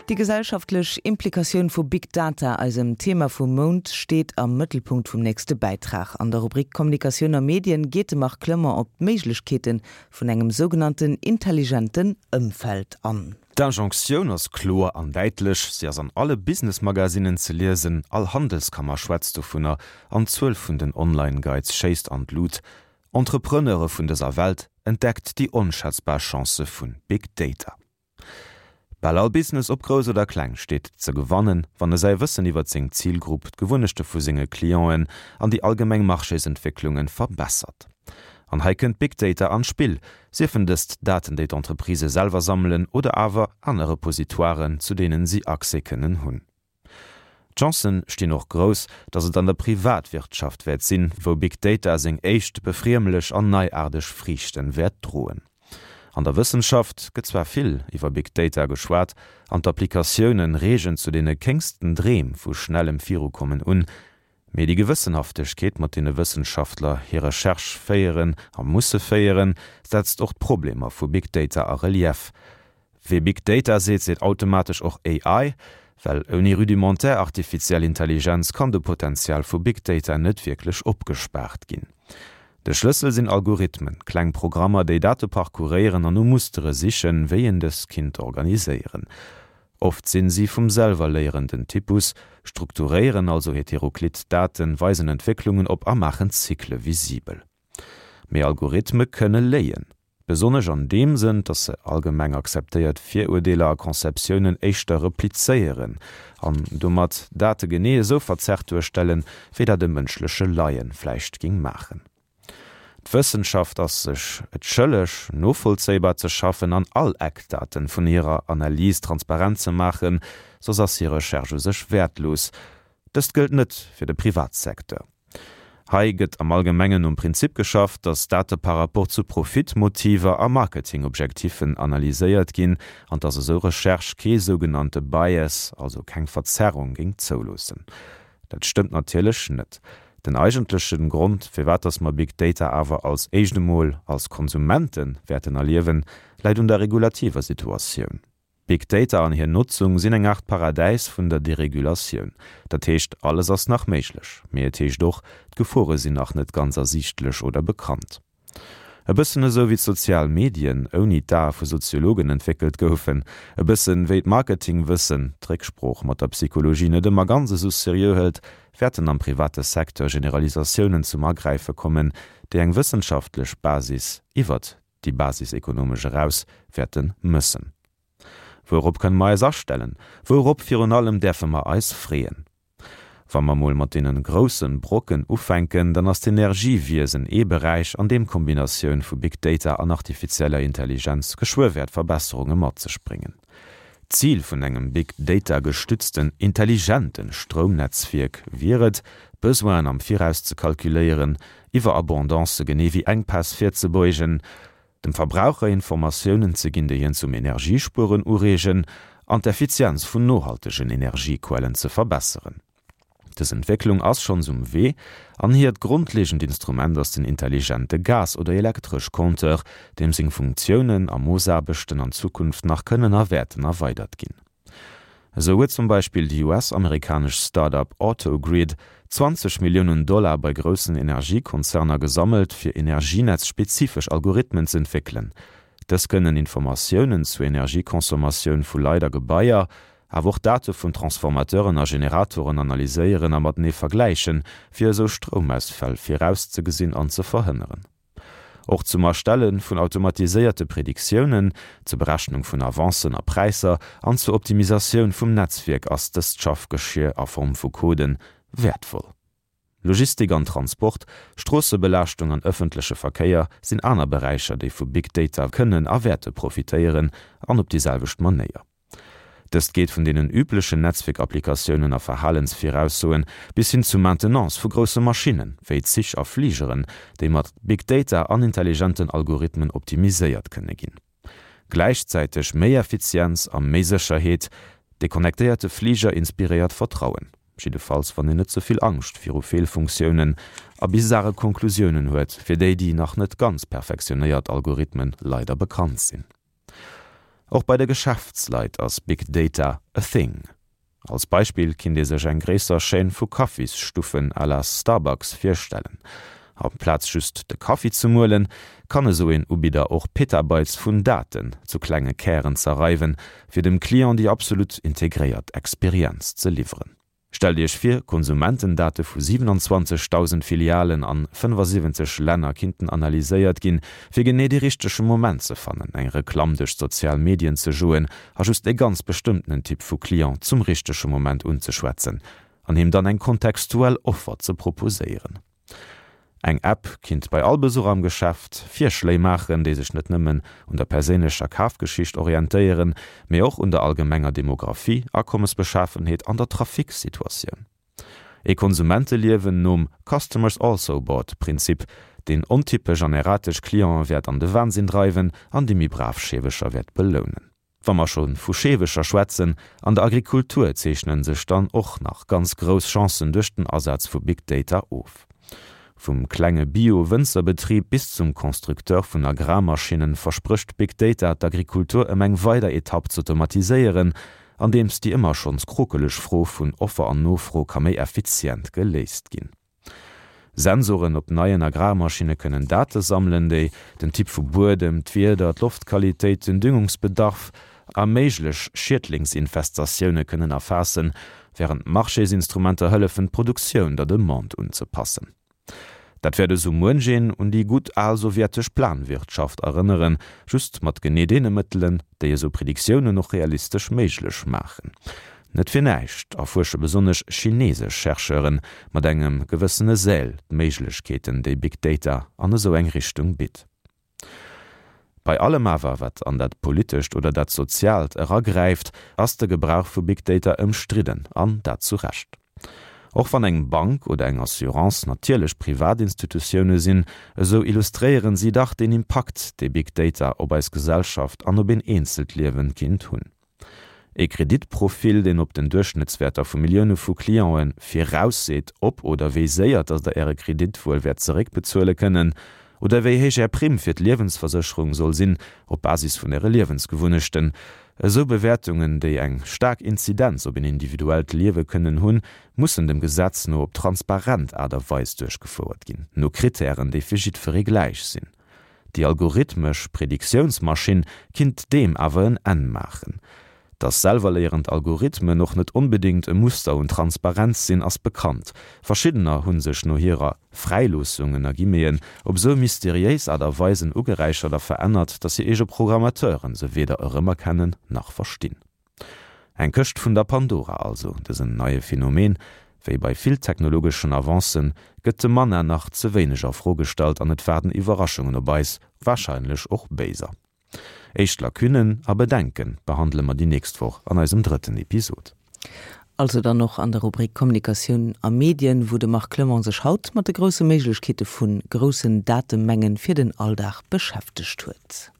Déi gesellschaftlech Implikatioun vu Big Data, eisem Thema vum Mount, steet am Mëttelpunkt vum nächste Bäitrag. An der Rubrik Kommunikatioun a Medien geet de Marc Clement op d'Méiglechkeete vun engem sougenannten intelligenten Ëmfeld an. D'Injonctioun ass kloer an däitlech, si ass an alle Business-Magazinen ze liesen, all Handelskammer schwätzt dovunner an d'Zuel vun den Online-Guides schéisst an d'Lut. Entrepreneure vun dëser Welt, entdeckt déi onschätzbar Chancë vu Big Data. Bal all Business, ob grouss oder kleng, steet ze gewannen, wann e säi Wëssen iwwert seng Zilgrupp, d'Gewunnechte vu senge Clienten an déi allgemeng Marchésentwécklunge verbessert. An hei kënnt Big Data an d'Spill, siefen dëst Daten, déi d'Entreprisë selwer sammelen oder awer aner Repositoiren, zu deenen si Accès kënnen hunn. D'Chancen stinn och grouss, datt et an der Privatwirtschaft wäert sinn, wou Big Data seng éischt befriemlech an neiaarteg Friichten wäert droen. An der Wëssenschaft gëtt zwar vill iwwer Big Data geschwat an d'Applikatiounen reegen zu deene kéngsten Dreem vu schnellem Virukommen un, Mee déi Gewëssenhaftegkeet, mat deene Wëssenschaftler hir Recherche féieren a musse féieren, setzt och d'Problemer vu Big Data a Relief. Wee Big Data seet, seet automatesch och AI, well ouni rudimentär artifiziell Intelligenz kann de Potenzial vu Big Data net wierklech opgespaart ginn. De Schlëssel sinn Algorithmen, kleng Programmer, déi Date parcouréieren an no Mustere sichen, wéi een dës kinnt organiséieren. Oft sinn si vum selwer léierenden Typus, strukturéieren also heteroklit Daten, weisen Entwécklungen op a maachen Zykle visibel. Mee Algorithme kënne léien. Besonnesch an deem Sënn, dass se allgemeng akzeptéiert Virurdeeler a Conceptiounen éischter replizéieren an domat Date genee esou verzerrt duerstellen, wéi dat e mënschleche Laien vläicht géing maachen. D'Wëssenschaft ass sech et schëlleg, novollzéibar ze schaffen an all Eckdaten vun hirer Analys transparent ze maachen, soss ass hir Recherche u sech wäertlos. Dëst gëllt net fir de Privatsecteur. Hei gëtt am Allgemengen nom Prinzip geschafft, datt Date par rapport zu Profitmotiver a Marketingobjektiffen analyséiert ginn an datt esou Recherche kee sougenannte Bias, also keng Verzerrung, géing zouloossen. Dat stëmmt natierlech net. Den eigentlechen Grond, firwat dass mer Big Data awer als éischt emol als Konsumenten wäerten erliewen, läit un der regulativer Situatioun. Big Data an hir Notzung sinn eng Aart Paradäis vun der Deregulatioun. Dat heescht, alles ass nach méiglech, mee et heescht och, d'Gefore sinn nach net ganz ersiichtlech oder bekannt. E bëssen esou wéi d'sozial Medien ouni d'Ae vu Soziologen entwéckelt goufen, e bëssen wéi d'Marketingwëssen d'Récksprooch mat der Psychologie net ëmmer ganz esou seriö hëlt, wäerten am private Secteur Generalisatiounen zum Agräife kommen, déi eng wëssenschaftlech Basis iwwert déi basisekonomesch eraus wäerte mëssen. Wourop kënne mer eis astellen? Wourop virun allem däerfe mer eis freeën? Wa mer mol mat deenen groussen Brocken ufänken, dann ass d'Energiewiesen ee Beräich, an deem d'Kombinatioun vu Big Data an artifizieller Intelligenz geschwë wäert Verbesserunge mat sech bréngen. D'Zil vun engem Big Data gestützten intelligente Stroumnetzwierk wier et, Besoinen am Viraus ze kalkuléieren, Iwwerabondancë genee wéi Enkpäss virzebeugen, dem Verbraucher Informatiounen ze ginn, déi hien zum Energiespueren ureegen an d'Effizienz vun nohaltegen Energiequellen ze verbesseren. Dës Entwécklung ass schonns um Wee an hiert grondlegend Instrument ass den intelligente Gas oder Elektresch-Compteur, deem seng Funktiounen a Moossaarbechten an Zukunft nach kënnen a wäerten erweidert ginn. Esou huet zum Beispill déi US-amerikanesch Start-up Autogrid 20 Milliounen Dollar bei groussen Energiekonzerner gesammelt, fir energienetz-spezifesch Algorithmen z'entwéckelen. Dës kënnen Informatiounen zur Energieconsommatioun vu Leit a Gebaier, awer och Date vun Transformateuren a Generatoren analyséieren a matenee vergläichen, fir esou Stroumausfäll virauszegesinn an ze verhënneren. Och zum Erstelle vun automatiséierte Prediktiounen, zur Berechnung vun Avancen a Präisser an zur Optimisatioun vum Netzwierk ass dëst Schaffgeschier a Form vu Coden wäertvoll. Logistik an Transport, Stroossebelaaschtung an ëffentleche Verkéier sinn aner Beräicher, déi vu Big Data kënnen a wäerte profitéieren an op déi selwecht Manéier. Dëst geet vun deenen üblechen Netzwierkapplikatiounen a Verhalensviraussoen bis hin zu Maintenance vu grousse Maschinnen, wéi Zich a Fligeren, déi mat Big Data an intelligenten Algorithmen optimiséiert kënne ginn. Gläichzäiteg méi Effizienz a méi Sécherheet, De connectéierte Fliger inspiréiert Vertrauen, jiddefalls wann een net ze vill Angscht viru Feelfunktiounen a bizare Konklusiounen huet, fir déi déi nach net ganz perfektionéiert Algorithmen leider bekannt sinn. Och bei de Geschäftsleit ass Big Data a thing. Als Beispill kinnt ee sech eng gréisser Chaîne vu Kaffisstuffen à la Starbucks virstellen. Amplaz just de Kaffi ze muelen, kann esou een Ubidder och Petabytes vun Daten zu klenge Kären zerreiwen, fir dem Client déi absolut integréiert Experienz ze liwweren. Stellt Iech vir, Konsumentendate vu 27.000 Filialen an 75 Länner kinnten analyséiert ginn, fir genee dee richtege Moment ze fannen, eng Reklamm duerch d'sozial Medien ze joen a just e ganz bestëmmtenen Typ vu Client zum richtege Moment unzeschwätzen an him dann eng kontextuell Offer ze proposéieren. Eng App kinnt bei all Besuch am Geschäft Virschléi maachen, déi sech net nëmmen un der perséinlecher Kafgeschicht orientéieren, mee och un der allgemenger Demographie, Akommesbeschafenheet an der Trafiksituatioun. Ee Konsumenteliewen nom Customers also bought Prinzip, deen ontypesch an erratesch Clienten wäert an de Wahnsinn dreiwen an déi méi brav Scheewecher wäert belounen. Wa mer scho vu Scheewecher schwätzen, an der Agrikultur zeechnen sech dann och nach ganz grouss Chancen duerch den Asaz vu Big Data of. Vum klenge Bio-Wënzerbetrib bis zum Constructeur vun Agrarmaschinnen versprécht Big Data d'Agrikultur ëm eng weider Etapp z'automatiséieren, andeems déi ëmmer schonns krokeleg Fro vun Offer an Nofro ka méi effizient geléist ginn. Sensoren op neien Agrarmaschinne kënnen Date sammelen, déi den Typ vu Buedem, d'Wieder, d'Loftqualitéit, den Düngungsbedarf a méiglech Schiedlingsinfestatioune kënnen erfaassen, wärend Marchésinstrumenter hëllefen, d'Produktioun der Demande unzepassen. Dat wäert esou muench een un déi gutt al sowjetesch Planwirtschaft erënneren, just mat genee deene Mëttelen, déi esou Prediktiounen och realistesch méiglech maachen. Net fir näischt erfuersche besonnesch chinesesch Chercheure mat engem gewëssene Zèle d'Méiglechkeeten, déi Big Data an esou eng Richtung bitt. Bei allem awer, wat an dat Politescht oder dat Soziaalt eragräift, ass de Gebrauch vu Big Data ëmstridden, an dat zu Recht. Och wann eng Bank oder eng Assurance natierlech privat Institutioune sinn, esou illustréieren si dach deen Impakt, dee Big Data op eis Gesellschaft an op een eenzelt Liewen kinnt hunn. Ee Kreditprofil, deen op den Duerchschnëttswäerter vu Millioune vu Clienten virausseet, ob oder wéi séier dass der Äre Kredit wuel wäert zeréckbezuele kënnen, oder wéi héich Är Primm fir d'Liewensversécherung soll sinn, op Basis vun Äre Liewensgewunnechten. Esou Bewäertungen, déi eng staark Inzidenz op een individuellt Liewe kënnen hunn, mussen dem Gesetz no op transparent Aart a Weis duerchgefouert ginn, no Krittären, déi fir jiddweree gläich sinn. Déi algorithmesch Prediktiounsmaschinn kinnt deem awer en Enn maachen. Dass selwerléierend Algorithmen och net onbedéngt e Muster un Transparenz sinn, ass bekannt. Verschiddener hu sech no hirer Fräiloossung, ënner Guillemeten, op esou mysteriéis Aart a Weisen ugeräichert a verännert, dass hir eege Programmateuren se weder erëmerkennen nach verstinn. Eng Këscht vun der Pandora also, dësen neie Phänomen. Wéi bei vill technologeschen Avancen, gëtt de Manna nach ze wéineg a Fro gestallt an et waarden Iwwerraschungen op eis, warscheinlech och béiser. Éischt Lacunnen a Bedenke behandele mer déi nächst Woch an eisem drëtten Episod. Also dann och an der Rubrik Kommunikatioun a Medien, wou de Marc Clement sech haut mat de grousse Méiglechkeete vu groussen Datemengen fir den Alldag beschäftegt huet.